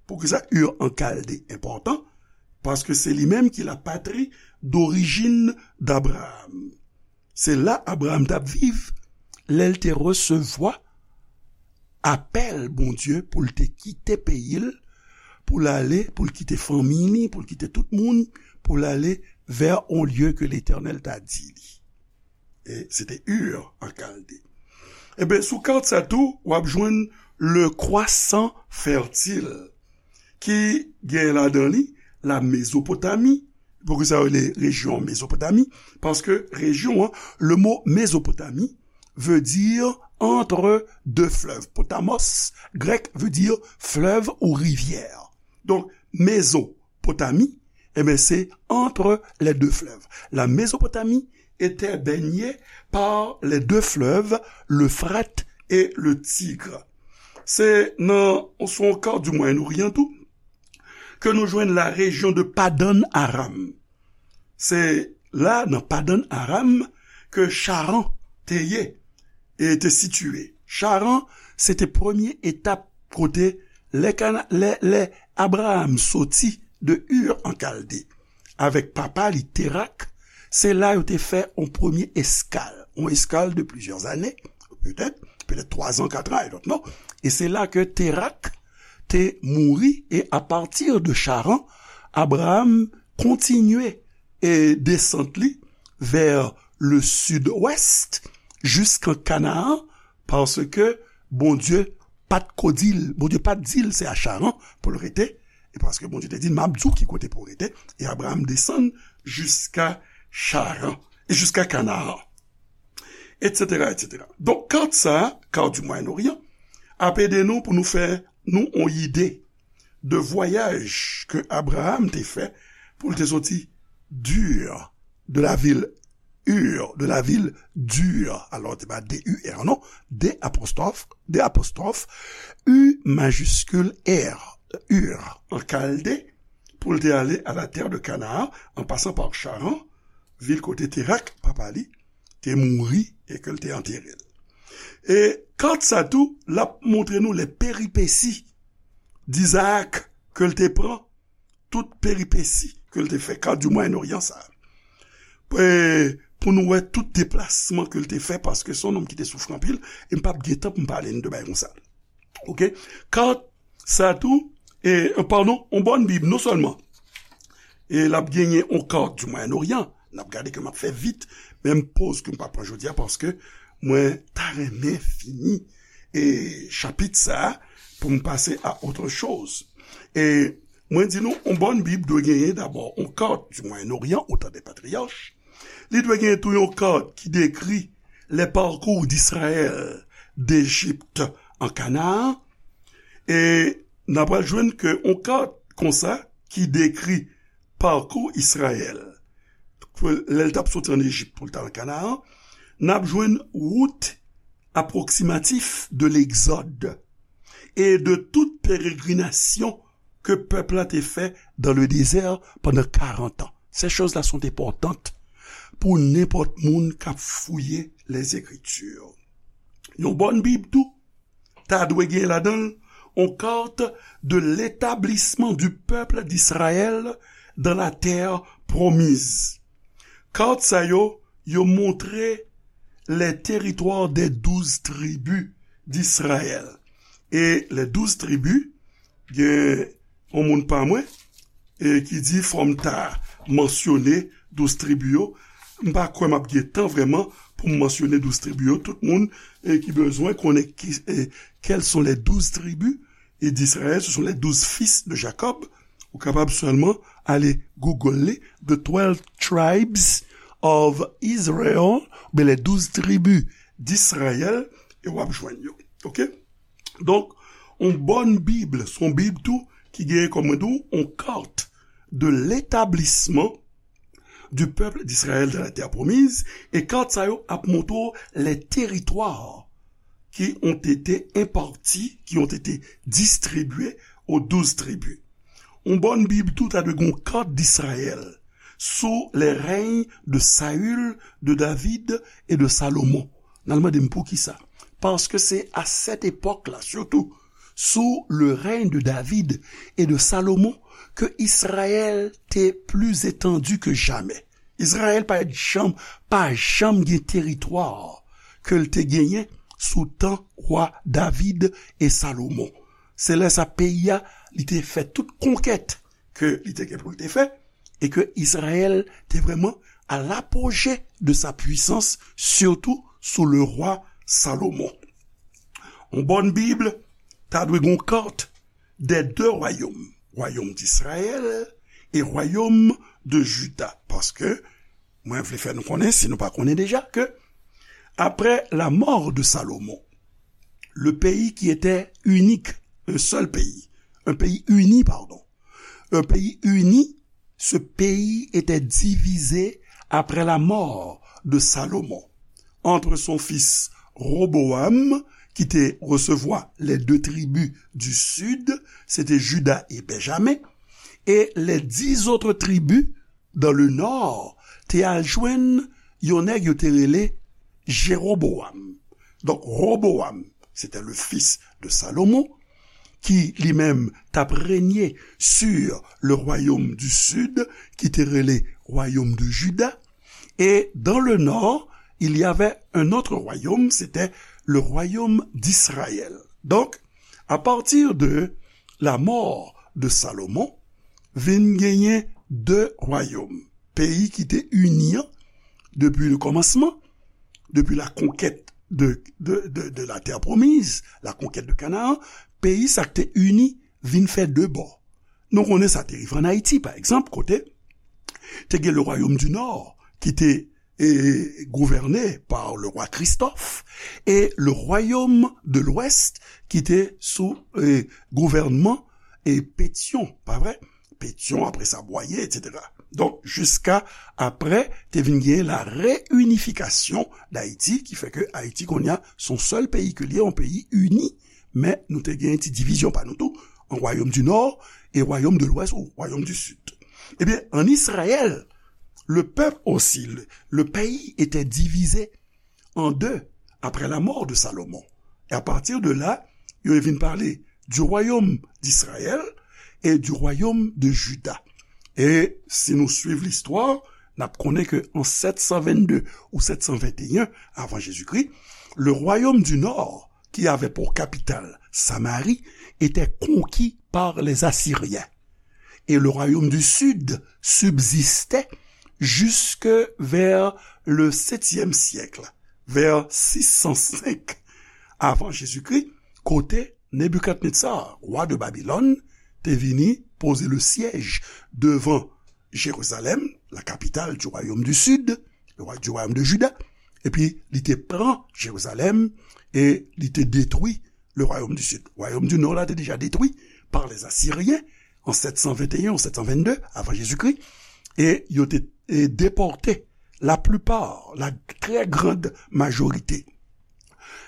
Poukisa Ur an Kalde enpòtan? Paske se li menm ki la patrie d'origine d'Abraham. Se la Abraham t ap viv lè l te resevwa apèl Bondye pou l te kite peyi l, pou l ale, pou l kite fanmi li, pou l kite tout moun, pou l ale vers on lieu que Letènèl ta di li. E se te Ur an Kalde. Eben, sou kat sa tou, w ap jwenn le croissant fertile, ki gen ladan li la Mezopotami. Poukisa yo rele rejyon Mezopotami? Paske rejyon an, le mo Mezopotami veut dire entre deux fleuves. Potamos, grèk, veut dire fleuve ou rivière. Donk, Mezo, Mésopotamie, eh bien, c'est entre les deux fleuves. La Mésopotamie était baignée par les deux fleuves, l'Euphrate et le Tigre. Se nan, sou yon kat du Moyen-Orient tou, ke nou jwenn la rejyon de Padan Aram. Se la, nan Padan Aram, ke Charan te ye e te sitiye. Charan, se te premye etap kote lè Kana-, lè, lè Abraham soti de Ur an Kalde avèk papa li Terak, se la yo te fè yon premye eskal, yon eskal de plizyè ane, petèt, petèt twa zan, kat an, I don't know. E se la ke Terak te mouri, e apati de Charan, Abraham kontinye e desant li vè le sud-ouest, jiskan Kanaan, paske Bondye pa t ko di l, Bondye pa t di l se a Charan pou l rete, e paske Bondye te di l, "M ap di w ki kote pou w rete," e Abraham desann jiska Charan, e jiska Kanaan, et cetera, et cetera. Donk, kat sa a, kat du Moyen-Orient, ap ede nou pou nou fè nou yon ide de vwayaj ke Abraham te fè pou l te soti d'Ur, de la ville Ur, de la ville d'Ur. Alò, te pa D U R, non. D apostrophe, D apostrophe, U majuscule R, Ur, an Kalde, pou l te ale à la terre de Canaan, en passant par Charan, vil kote Terak, papa li, te mouri e ke l te antere l. E kat sa tou, l ap montre nou les péripéties d'Isaac ke l te pran, tout peripesi ke l te fè, kat du Moyen-Orient sa a. E pou nou wè tout deplasman ke l te fè, paske se yon nonm ki te soufri anpil, e m p ap gen tan pou m pale n de bagay konsa. Oke? Kat sa tou, e, padon, yon bòn Bib, non sèlman, e l ap genyen yon kat du Moyen-Orient, n ap gade ke m ap fè vit, menm poz ke m pa pran jodi a, paske mwen ta renmen fini, e, chapit sa a, pou m pase a autre chose. E mwen di nou, yon bòn Bib dwe genyen dabò yon kat du Moyen-Orient, au temps des patriarches. Li dwe genyen tou yon kat ki dekri les parcours d'Israël d'Égypte en Canaan. E n ap pral jwenn ke yon kat konsa ki dekri parcours Israël, ke lè l t ap soti ann Ejip pou l t al Kanaan, n ap jwenn wout approximatif de l'exode et de toute pérégrination ke pèp la te fè dans le désert pendant quarante ans. Ces choses-là sont importantes pou nenpòt moun k ap fouye les Écritures. Yon bòn Bib tou ta dwe gen ladan l yon carte de l'établissement du peuple d'Israël dans la terre promise. Kat sa yo, yo montre les territoires des douze tribus d'Israël. E les douze tribus, gen yon moun pa mwen, e ki di fò m ta mansyone douz tribi yo. M pa kwè m ap gen tan vrèman pou m mansyone douz tribi yo. Tout moun, e, ki bezwen konnen ki, e, quelles sont les douze tribus, e, d'Israël, ce sont les douze fils de Jacob. Ou kapab sèlman ale Google li, The Twelve Tribes of Israel, oubyen les douze tribus d'Israël, e w ap jwenn yo. Oke? Donk, yon bòn Bib, se yon Bib tou ki genyen kòm mwen di w, yon carte de l'établissement du peuple d'Israël dans la terre promise, e kat sa yo ap montre w les territoires qui ont été impartis, qui ont été distribués aux douze tribus. Yon bòn Bib tou ta dwe gen yon kat d'Israël sou les règnes de Saül, de David et de Salomon. N al mande m poukisa. Paske se a sèt epòk la, sitou sou le règne de David et de Salomon, ke Israël te pli etandi ke jamè. Izrayèl pa janm, pa janm gen teritwa ke l te genyen sou tan wa David e Salomon. Se lè sa peyi a, li te fè tout konkèt ke li te gen pou l te fè, e ke Izrayèl te vrèman à l'apogée de sa puissance, sitou sou le roi Salomon. Yon bòn Bib ta dwe gen yon kat des deux royaumes, royaume d'Israël et royaume de Juda. Paske, mwen vle fè nou konnen, si nou pa konnen deja, ke après la mort de Salomon, le pays qui était unique, un seul pays, un pays uni, pardon, un pays uni, ce pays était divisé après la mort de Salomon entre son fils Roboam, ki te resevwa les deux tribus du sud, se te Juda e Benjamen, e les dix autres tribus dans le nord te al jwenn yon nèg yo te rele Jeroboam. Donk, Roboam, se te le fils de Salomon, ki li menm t ap renye sur le royaume du sud, ki te rele royaume de Juda. Et dans le nord, il y avait un autre royaume, c'était le royaume d'Israël. Donc, à partir de la mort de Salomon, vin genyen de royaume. Peyi ki te ini an, depi le kòmansman, depi la conquête de, de, de, de la terre promise, la conquête de Canaan, peyi sa k te ini vin fè de bò. Nou konnen sa te rive an Ayiti, pa egzanp, kote te gen le royaume du nord ki te e, gouverné par le roi Christophe, et le royaume de l'Ouest ki te sou e, gouvènman e, Pétion, pa vre? Pétion, apre sa Boyer, et cetera. Donk, jiska apre, te vin gen la réunification d'Haïti, ki fè ke Ayiti, kounye a, se yon sèl peyi ke li ye, yon peyi ini, men nou te gen ti divizyon pa nou tou, an royaume du nord e royaume de l'ouest ou royaume du sud. Ebyen, an Izrayèl, le peuple aussi, le, le pays était divisé en deux après la mort de Salomon. Et à partir de là, yo vin pale du royaume d'Israël et du royaume de Juda. E si nou swiv listwa, n ap konnen ke an sèt san vennde ou sèt san venteyen avan Jezikri, le royaume du nord, qui avait pour capitale Samarie, était conquis par les Assyriens. Et le royaume du sud subsistait jusque vers le septième siècle, vers six cent cinq avant Jésus-Christ, kote Nebikadnetsar, wa de Babilòn, te vini poze le sièj devan Jérusalem, la capitale du royaume du sud, le roi du royaume de Juda, epi li te pran Jerizalèm e li te detwi le royaume du sud. Royaume du nord la te deja detwi par les Assyriens en sept cent vingt et un ou sept cent vingt-deux avant Jésus-Christ, e yo te e depòte la plupart, la très grande majorité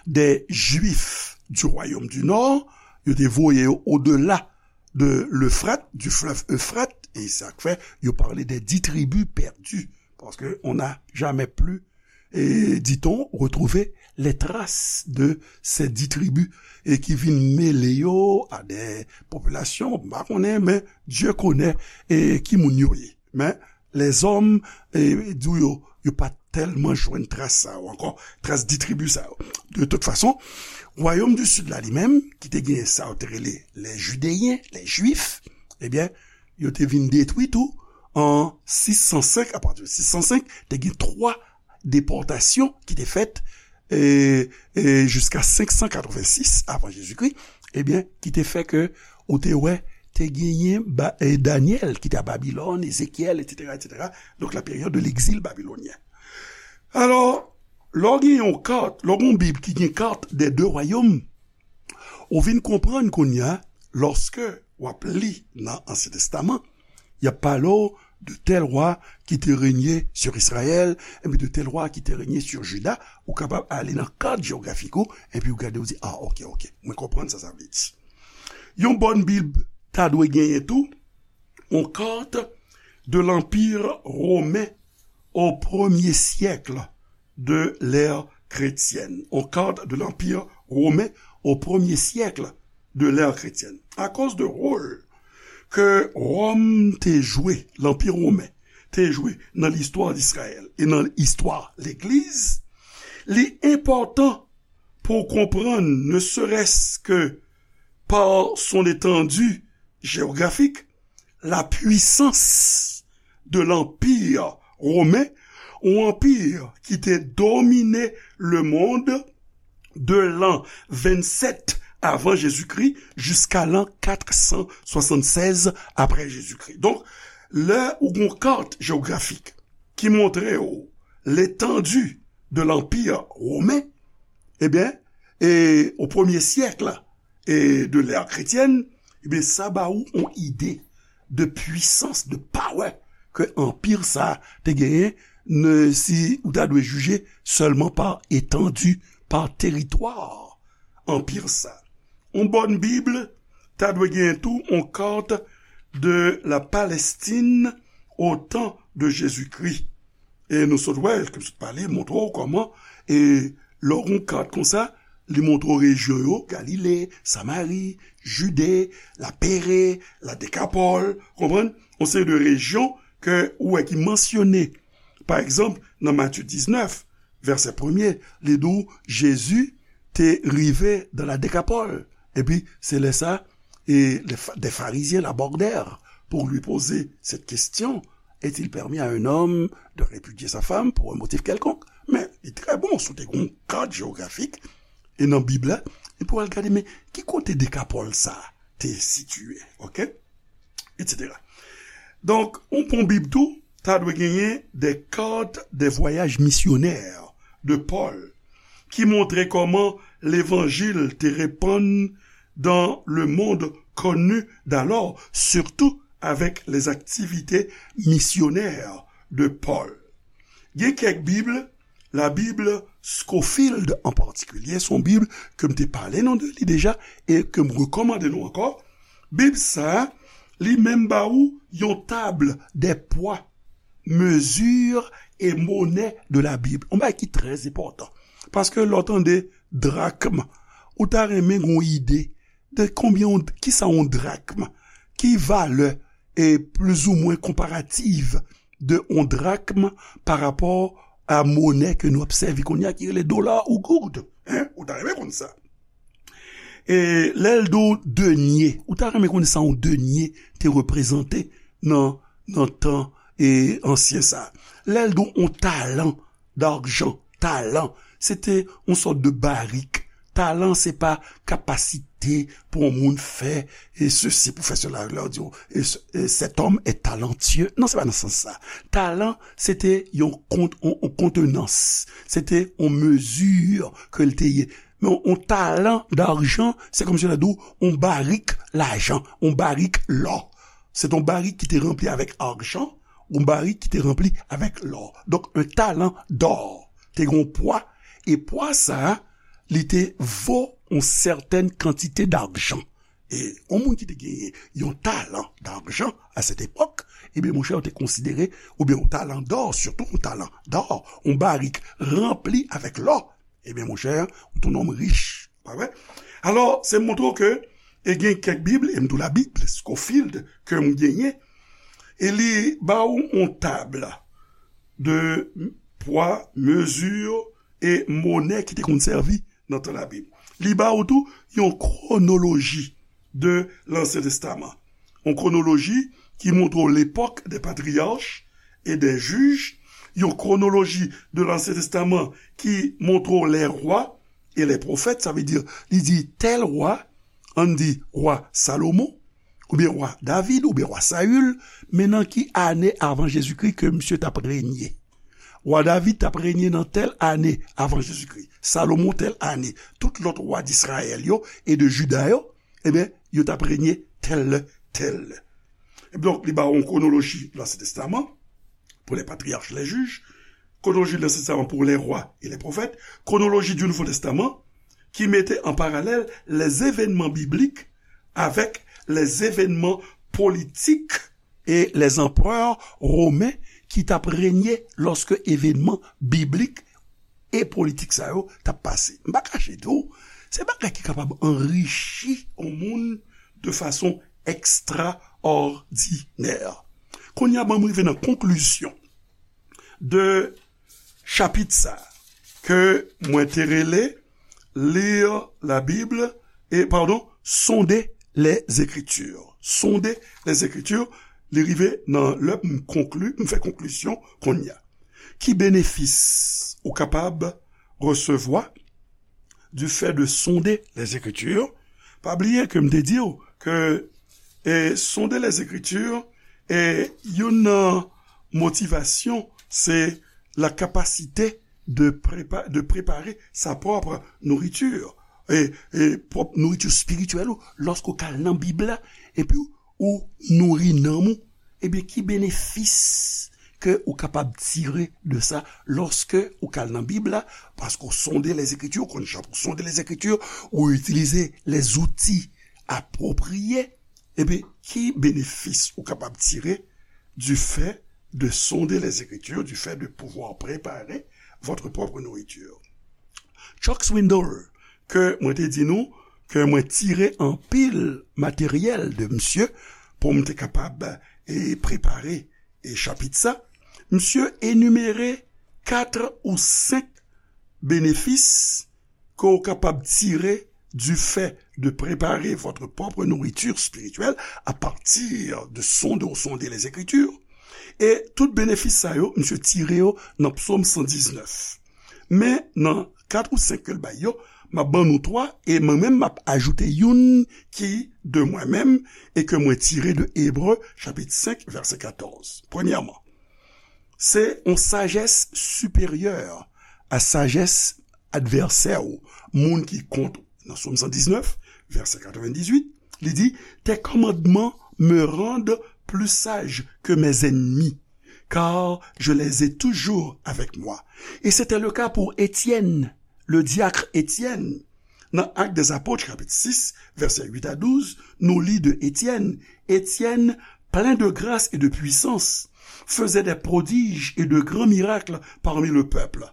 des Juifs du royaume du nord, yo te voye yo au-delà de l'Euphrate, du fleuve Euphrates, e sa k fè yo pale de dix tribus perdues, parce que on n'a jamais plus, et dit-on, retrouvé les traces de ces dix tribus, e ki vin mele yo a de popilasyon, m pa konnen, men Dieu connaît, e ki moun yo ye. Men lèzòm, e, di w yo, yo pa tèlman jwenn tras sa yo ankò, tras dix tribus sa yo. De tout fason, wayòm di sid la li menm, ki te gen sa yo te rele les Judéens, les Juifs, ebyen, yo te vin detwi tou an sis san senk, apati de sis san senk, te gen twa depòtasyon ki te fèt, e, e, jiska senk san katrevensis avan Jezikri, ebyen, ki te fè ke ou te wè, te genyen ba, e, Danyèl ki te a Babilòn, Ezekyèl, etsetera, etsetera. Donk, la période de l'exil babylonien. Alò, lè w gen yon kat, lè w gen yon Bib ki gen kat des deux royaumes, ou vin konprann kounye a, lòske w ap li nan Ansyen Testaman, y ap pale w de tel roi qui te régnait sur Israël, epi de tel roi qui te régnait sur Juda, ou kapab ale nan kat jewografik ou, epi ou gade, ou di, ah, ok, ok, mwen konprann sa sa vle di. Yon bòn Bib ta dwe genyen tou, yon kat de l'Empire romain au premier siècle de l'ère chrétienne. Yon kat de l'Empire romain au premier siècle de l'ère chrétienne. Akoz de wòl ke Wòm te jwe, Lanpi Women te jwe nan listwa Izrayèl e nan istwa Legliz, li enpòtan pou w konprann, ne serait-ce que par son étendue géographique, la puissance de l'Empire romain, yon anpi ki te domine lemonn de l'an vingt-sept avant Jésus-Christ jusqu'à l'an quatre cent soixante-seize après Jésus-Christ. Donk, lè ou gon kat jewografik ki montre w l'étendue de l'Empire romain, ebyen, e, au premier siècle e de l'ère chrétienne, ebyen, sa ba ou yon ide de puissance, de power ke anpi sa te genyen, ne, si ou ta dwe jije sèlman pa etandi, pa teritwa anpi sa. Yon bòn Bib ta dwe genyen tou yon kat de la Palestine au temps de Jésus-Christ. E nou sot wè, ke m sot pale, montre w kòman, e lè w gon kat konsa, li montre w rejyon yo, Galile, Samari, Jide, la Pere, la Dekapòl, konprann? Yon seri de rejyon ke ou wè ki mansyone. Pa egzanp, nan Matye diznèf, vèsè premye, li di w, Jezi te rive dans la Décapole. Epi, se lè sa, e le fa-, des Pharisiens l'abordèrent pour lui poser cette question, est-il permis à un homme de répudier sa femme pour un motif quelconque? Men, li trè bon, si w te gon kat jewografik, e nan Bib la, e pou al gade, men, ki kote Dekapòl sa te sitiye, ok? Et cetera. Donk, yon bon Bib tou, ta dwe genyen des cartes des voyages missionnaires de Paul, ki montre kòman levanjil te repann dans le monde connu d'alors, surtout avec les activités missionnaires de Paul. Gen kèk Bib, la Bible Scofield an patikilye, se yon Bib ke m te pale nou de li deja e ke m rekòmande nou ankò. Bib sa a, li menm ba ou yon table des poids, mesures et monnaies de la Bible. Yon bagay ki trè enpòtan. Paske lè w tande drakm, ou ta renmen gon ide de konbyen, yon, kisa yon drakm, ki valè e plizoumwen konparativ de yon drakm pa rapò a monè ke nou ap sèvi kounye a ki rele dola ou goud. Hein? Ou ta renmen konn sa. E lè l di w denye, ou ta renmen konn sa yon denye te reprezante nan, nan tan e ansyen sa. Lè l di w yon talan d'argent, talan, se te yon sòt de barik. Talan, se pa kapasite pou yon moun fè e sesi, pou fè sela. Lè w di, e, e, cet homme est talentueux. Non, se pa nan sans sa. Talan, se te yon kont-, yon, yon kontenans. Se te yon mezi ke l te ye. Men yon talan d'argent, se kòmsi lè di w yon barik lajan, yon barik lò. Se te yon barik ki te ranpli avèk ajan, yon barik ki te ranpli avèk lò. Donk, un talent d'or te gen yon pwa, e pwa sa a, li te vo yon sètèn kantite d'ajan. E yon moun ki te genyen yon talan d'ajan a sèt epòk, ebyen, monchè, yo te konsidere, oubyen yon talan dò, sitou yon talan dò, yon barik ranpli avèk lò, ebyen, monchè, ou te yon nonm rich. Pa vre? Alò, se montre w ke, e gen kèk Bib, e m di w la Bible Scofield ke m genyen, e li ba w yon tab de pwa, mezi e monè ki te konn sèvi nan tan Labib. Li ba w tou yon kwonoloji de Lansyen Testaman. Yon kwonoloji ki montre w lepòk des patriarches et des juges, yon kwonoloji de Lansyen Testaman ki montre w les rois et les prophètes, sa vle di, li di tèl wa, ann di wa Salomon, oubyen wa David, oubyen wa Saül, men nan ki ane avan Jezikri ke misye t ap renye? Wa David t ap renye nan tèl ane avan Jezikri, Salomon tèl ane, tout lòt wa Dizrayèl yo e de Jida yo, ebyen, yo t ap renye tèl lè, tèl lè. Donk, li ba w yon kwonoloji Ansyen Testaman, pour les patriarches, les juges, chronologie de l'Ancien Testament pour les rois et les prophètes, chronologie du Nouveau Testament, ki mete an paralèl les événements bibliques avec les événements politiques et les empereurs romains ki t ap renye lòske evènman biblik e politik sa yo t ap pase. M pa kache di w, se bagay ki kapab anrichi yon moun de fason ekstraòdinè. Kounye a, ban m rive nan konklizyon de chapit sa ke mwen te rele Lire la Bible, e, padon, Sonder les Écritures. Sonder les Écritures, li rive nan lè m konkli, m fè konklizyon kounye a. Ki benefis ou kapab resevwa du fait de sonder les Écritures? Pa bliye ke m te di w ke, e, sonder les Écritures, e, youn nan motivasyon, se la capacité de prépa-, de préparer sa propre nourriture, e, e pwòp nouriti espirityèl ou, lòske w ka al nan Bib la, epi ou nouri nanm ou, ebyen, ki benefis ke ou kapab tire de sa lòske ou ka al nan Bib la, paske w sonde lèzekritir, ou konn jan pou sonde lèzekritir, ou itilize lèzouti apwopriye, ebyen, ki benefis ou kapab tire du fait de sonder les Écritures, du fait de pouvoir préparer votre propre nourriture? Chuck Swindoll, ke mwen te di nou, ke mwen tire anpil materyèl de misye pou m te kapab, e, prepare, e, chapit sa. Misye enimere kat ou senk benefis ke w kapab tire du fait de préparer votre propre nourriture spirituelle à partir de sonder ou sonder les Écritures. E tout benefis sa yo, misye tire yo nan Psaume cent dix-neuf. Men nan kat ou senk ke l bay yo, m ap ban nou twa, e mwen menm m ap ajoute youn ki de mwen menm, e ke mwen tire de Ebre, chapit senk, vèsè katòz. Premyèman, se yon sajès siperyè a sajès advèsè ou, moun ki kont ou. Nan Sòm san diznèf, vèsè katrevenndizuit, li di, Tes commandements me rendent plus sage que mes ennemis, car je les ai toujours avec moi. Et c'était le cas pour Étienne, le diacre Étienne. Nan Actes des Apôtres, chapitre six, versets huit à douze, nou li de Étienne. Étienne, plein de grâce et de puissance, faisait des prodiges et de grands miracles parmi le peuple.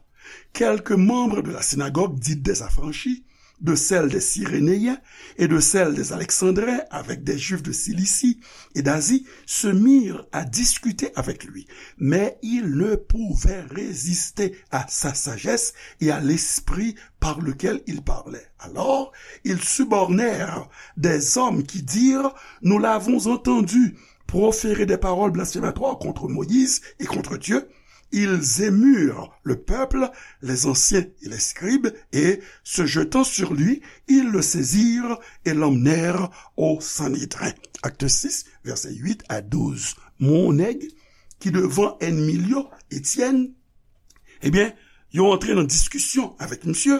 Quelques membres de la synagogue dite des Affranchis, de celle des Cyrénéens et de celle des Alexandrins avec des Juifs de Cilicie et d'Asie, se mirent à discuter avec lui. Mais il ne pouvait résister à sa sagesse et à l'esprit par lequel il parlait. Alors, ils subornèrent des hommes qui dirent, Nous l'avons entendu proférer des paroles blasphématoires contre Moïse et contre Dieu. Ils émurent le peuple, les anciens et les scribes, et, se jetant sur lui, ils le saisirent et l'emmenèrent au Sanhédrin. Actes six, versets huit à douze. Yon nèg ki devan ènmi l yo, Étienne, ebyen, yo antre nan diskisyon avèk misye,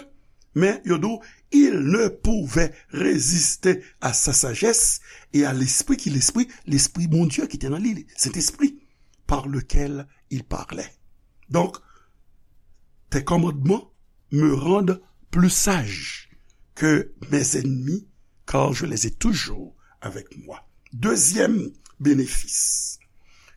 men yo di w, il ne pouvait résister à sa sagesse et à l'esprit, ki lespri, lespri Bondye ki te nan li, Sentespri, par lequel il parlait. Donc, tes commandements me rendent plus sage que mes ennemis, car je les ai toujours avec moi. Dezyèm benefis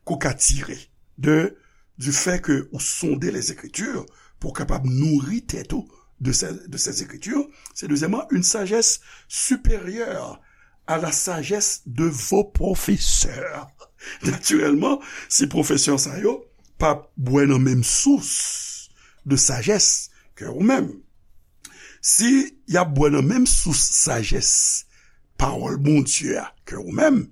ke w ka tire de, du fait que ou sonde les Écritures pou w kapab nouri tèt ou de ces, de ces Écritures, c'est deuxièmement une sagesse supérieure à la sagesse de vos professeurs. Natirèlman, si pwofesè sa yo p ap bwè nan menm sous de sajès ke ou menm, si y ap bwè nan menm sous sajès pawòl Bondye a ke ou menm,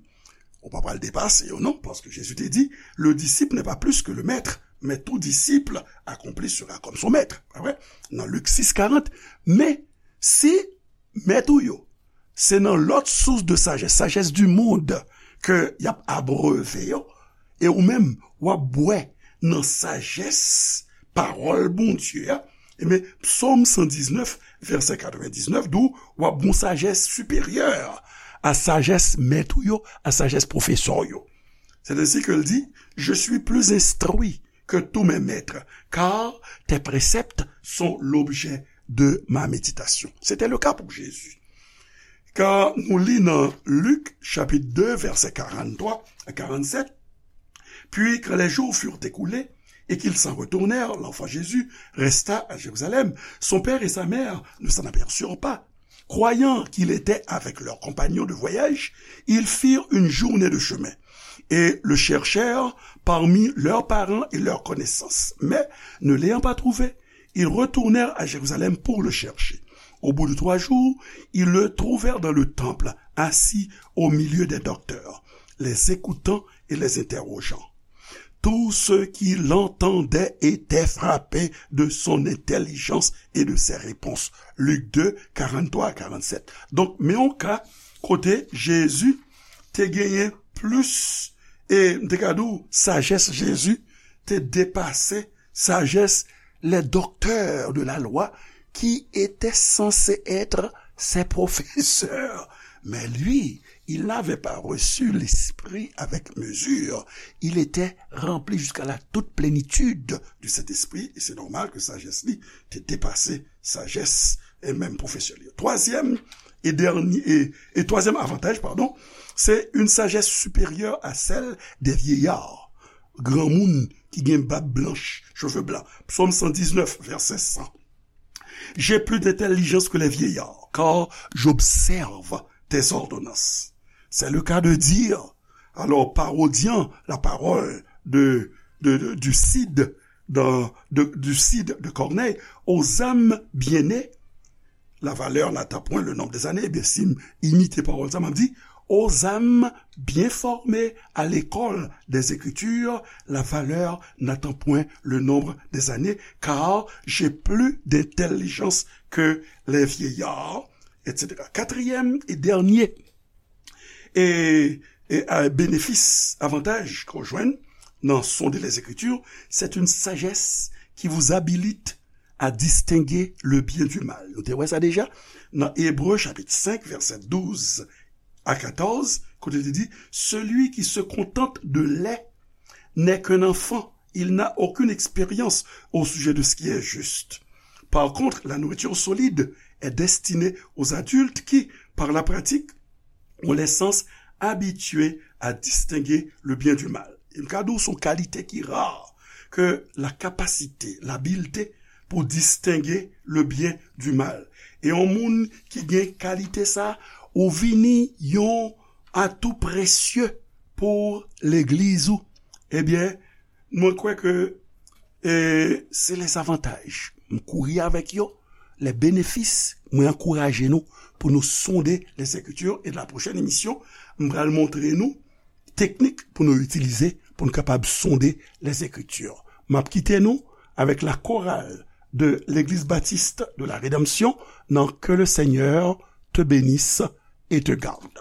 ou pa pral depase yo non, paske Jezi te di, le disciple n'est pas plus que le maître, mais tout disciple accompli sera comme son maître. Pa vre? Nan Lik sis karant. Men, si mèt ou yo, se nan lòt sous de sajès, sajès du monde, ke y ap abreve yo, e ou menm, w ap bwè nan sajès pawòl Bondye a, ebyen, Psòm san diznèf, vèsè katrevenndiznèf, di w, w ap gon sajès siperyè à sagesse maître ou yo, à sagesse professeur ou yo. C'est ainsi que l di, je suis plus instruit que tous mes maîtres, car tes préceptes sont l'objet de ma méditation. C'était le cas pour Jésus. Kan nou li nan Lik, chapit de, vèsè karanntrwa a karannsèt, puis quand les jours furent écoulés et qu'ils s'en retournèrent, l'enfant Jésus resta à Jérusalem. Son père et sa mère ne s'en aperçurent pas. Croyant qu'il était avec leurs compagnons de voyage, ils firent une journée de chemin et le cherchèrent parmi leurs parents et leurs connaissances. Mais, ne l'ayant pas trouvé, ils retournèrent à Jérusalem pour le chercher. Au bout de trois jours, ils le trouvèrent dans le temple, assis au milieu des docteurs, les écoutant et les interrogeant. Tous ceux qui l'entendaient étaient frappés de son intelligence et de ses réponses. Lik de, karanntrwa a karannsèt. Donk, men yon ka kote Jezi te genyen plis, e m te ka di w, sajès Jezi te depase sagesse les docteurs de la loi qui étaient censés être ses professeurs. Mais lui, il n'avait pas reçu l'Esprit avec mesure. Il était rempli jusqu'à la toute plénitude du Saint-Esprit. Et c'est normal que sagesse li te depase sagesse e menm professeur li. Troisième et dernier, et, et troisième avantage, pardon, c'est une sagesse supérieure à celle des vieillards. Granmoun ki gen bab blanch, cheve blan. Psaume cent dix-neuf, verset cent. J'ai plus d'intelligence que les vieillards, car j'observe tes ordonnances. C'est le cas de dire, alors, parodiant la parole de, de, de, du Cid, dans, de, du Cid de Corneille, aux âmes bien nées, la valeur n'atteint point le nombre des années. Ebyen, si m imite pawòl sa, m ap di, aux âmes bien formées à l'école des Écritures, la valeur n'atteint point le nombre des années, car j'ai plus d'intelligence que les vieillards, et cetera. Katriyèm e dènye e, e, a, benefis, avantaj ke w jwenn nan sonde les Écritures, c'est une sagesse qui vous habilite à distinguer le bien du mal. Nou te wè sa deja nan Ebre chapit senk, vèsè douz a katòz, kote li di, celui qui se contente de lait n'est qu'un enfant, il n'a aucune expérience au sujet de ce qui est juste. Par contre, la nourriture solide est destinée aux adultes qui, par la pratique, ont les sens habitués à distinguer le bien du mal. E m ka di w, se yon kalite ki ra, ke la kapasite, labilte pou distenge le bien du mal. E yon moun ki gen kalite sa, ou vini yon atou presye pou legliz ou. Ebyen, mwen kwè ke, e, se lè zavantaj. M kouri avèk yo, lè benefis, mwen ankouraje nou pou nou sonde les Écritures. E la pwochèn emisyon, m pral montre nou teknik pou nou itilize pou nou kapab sonde les Écritures. M ap kite nou avèk la chorale de l'Église Baptiste de la Rédemption nan Que le Seigneur te bénisse et te garde.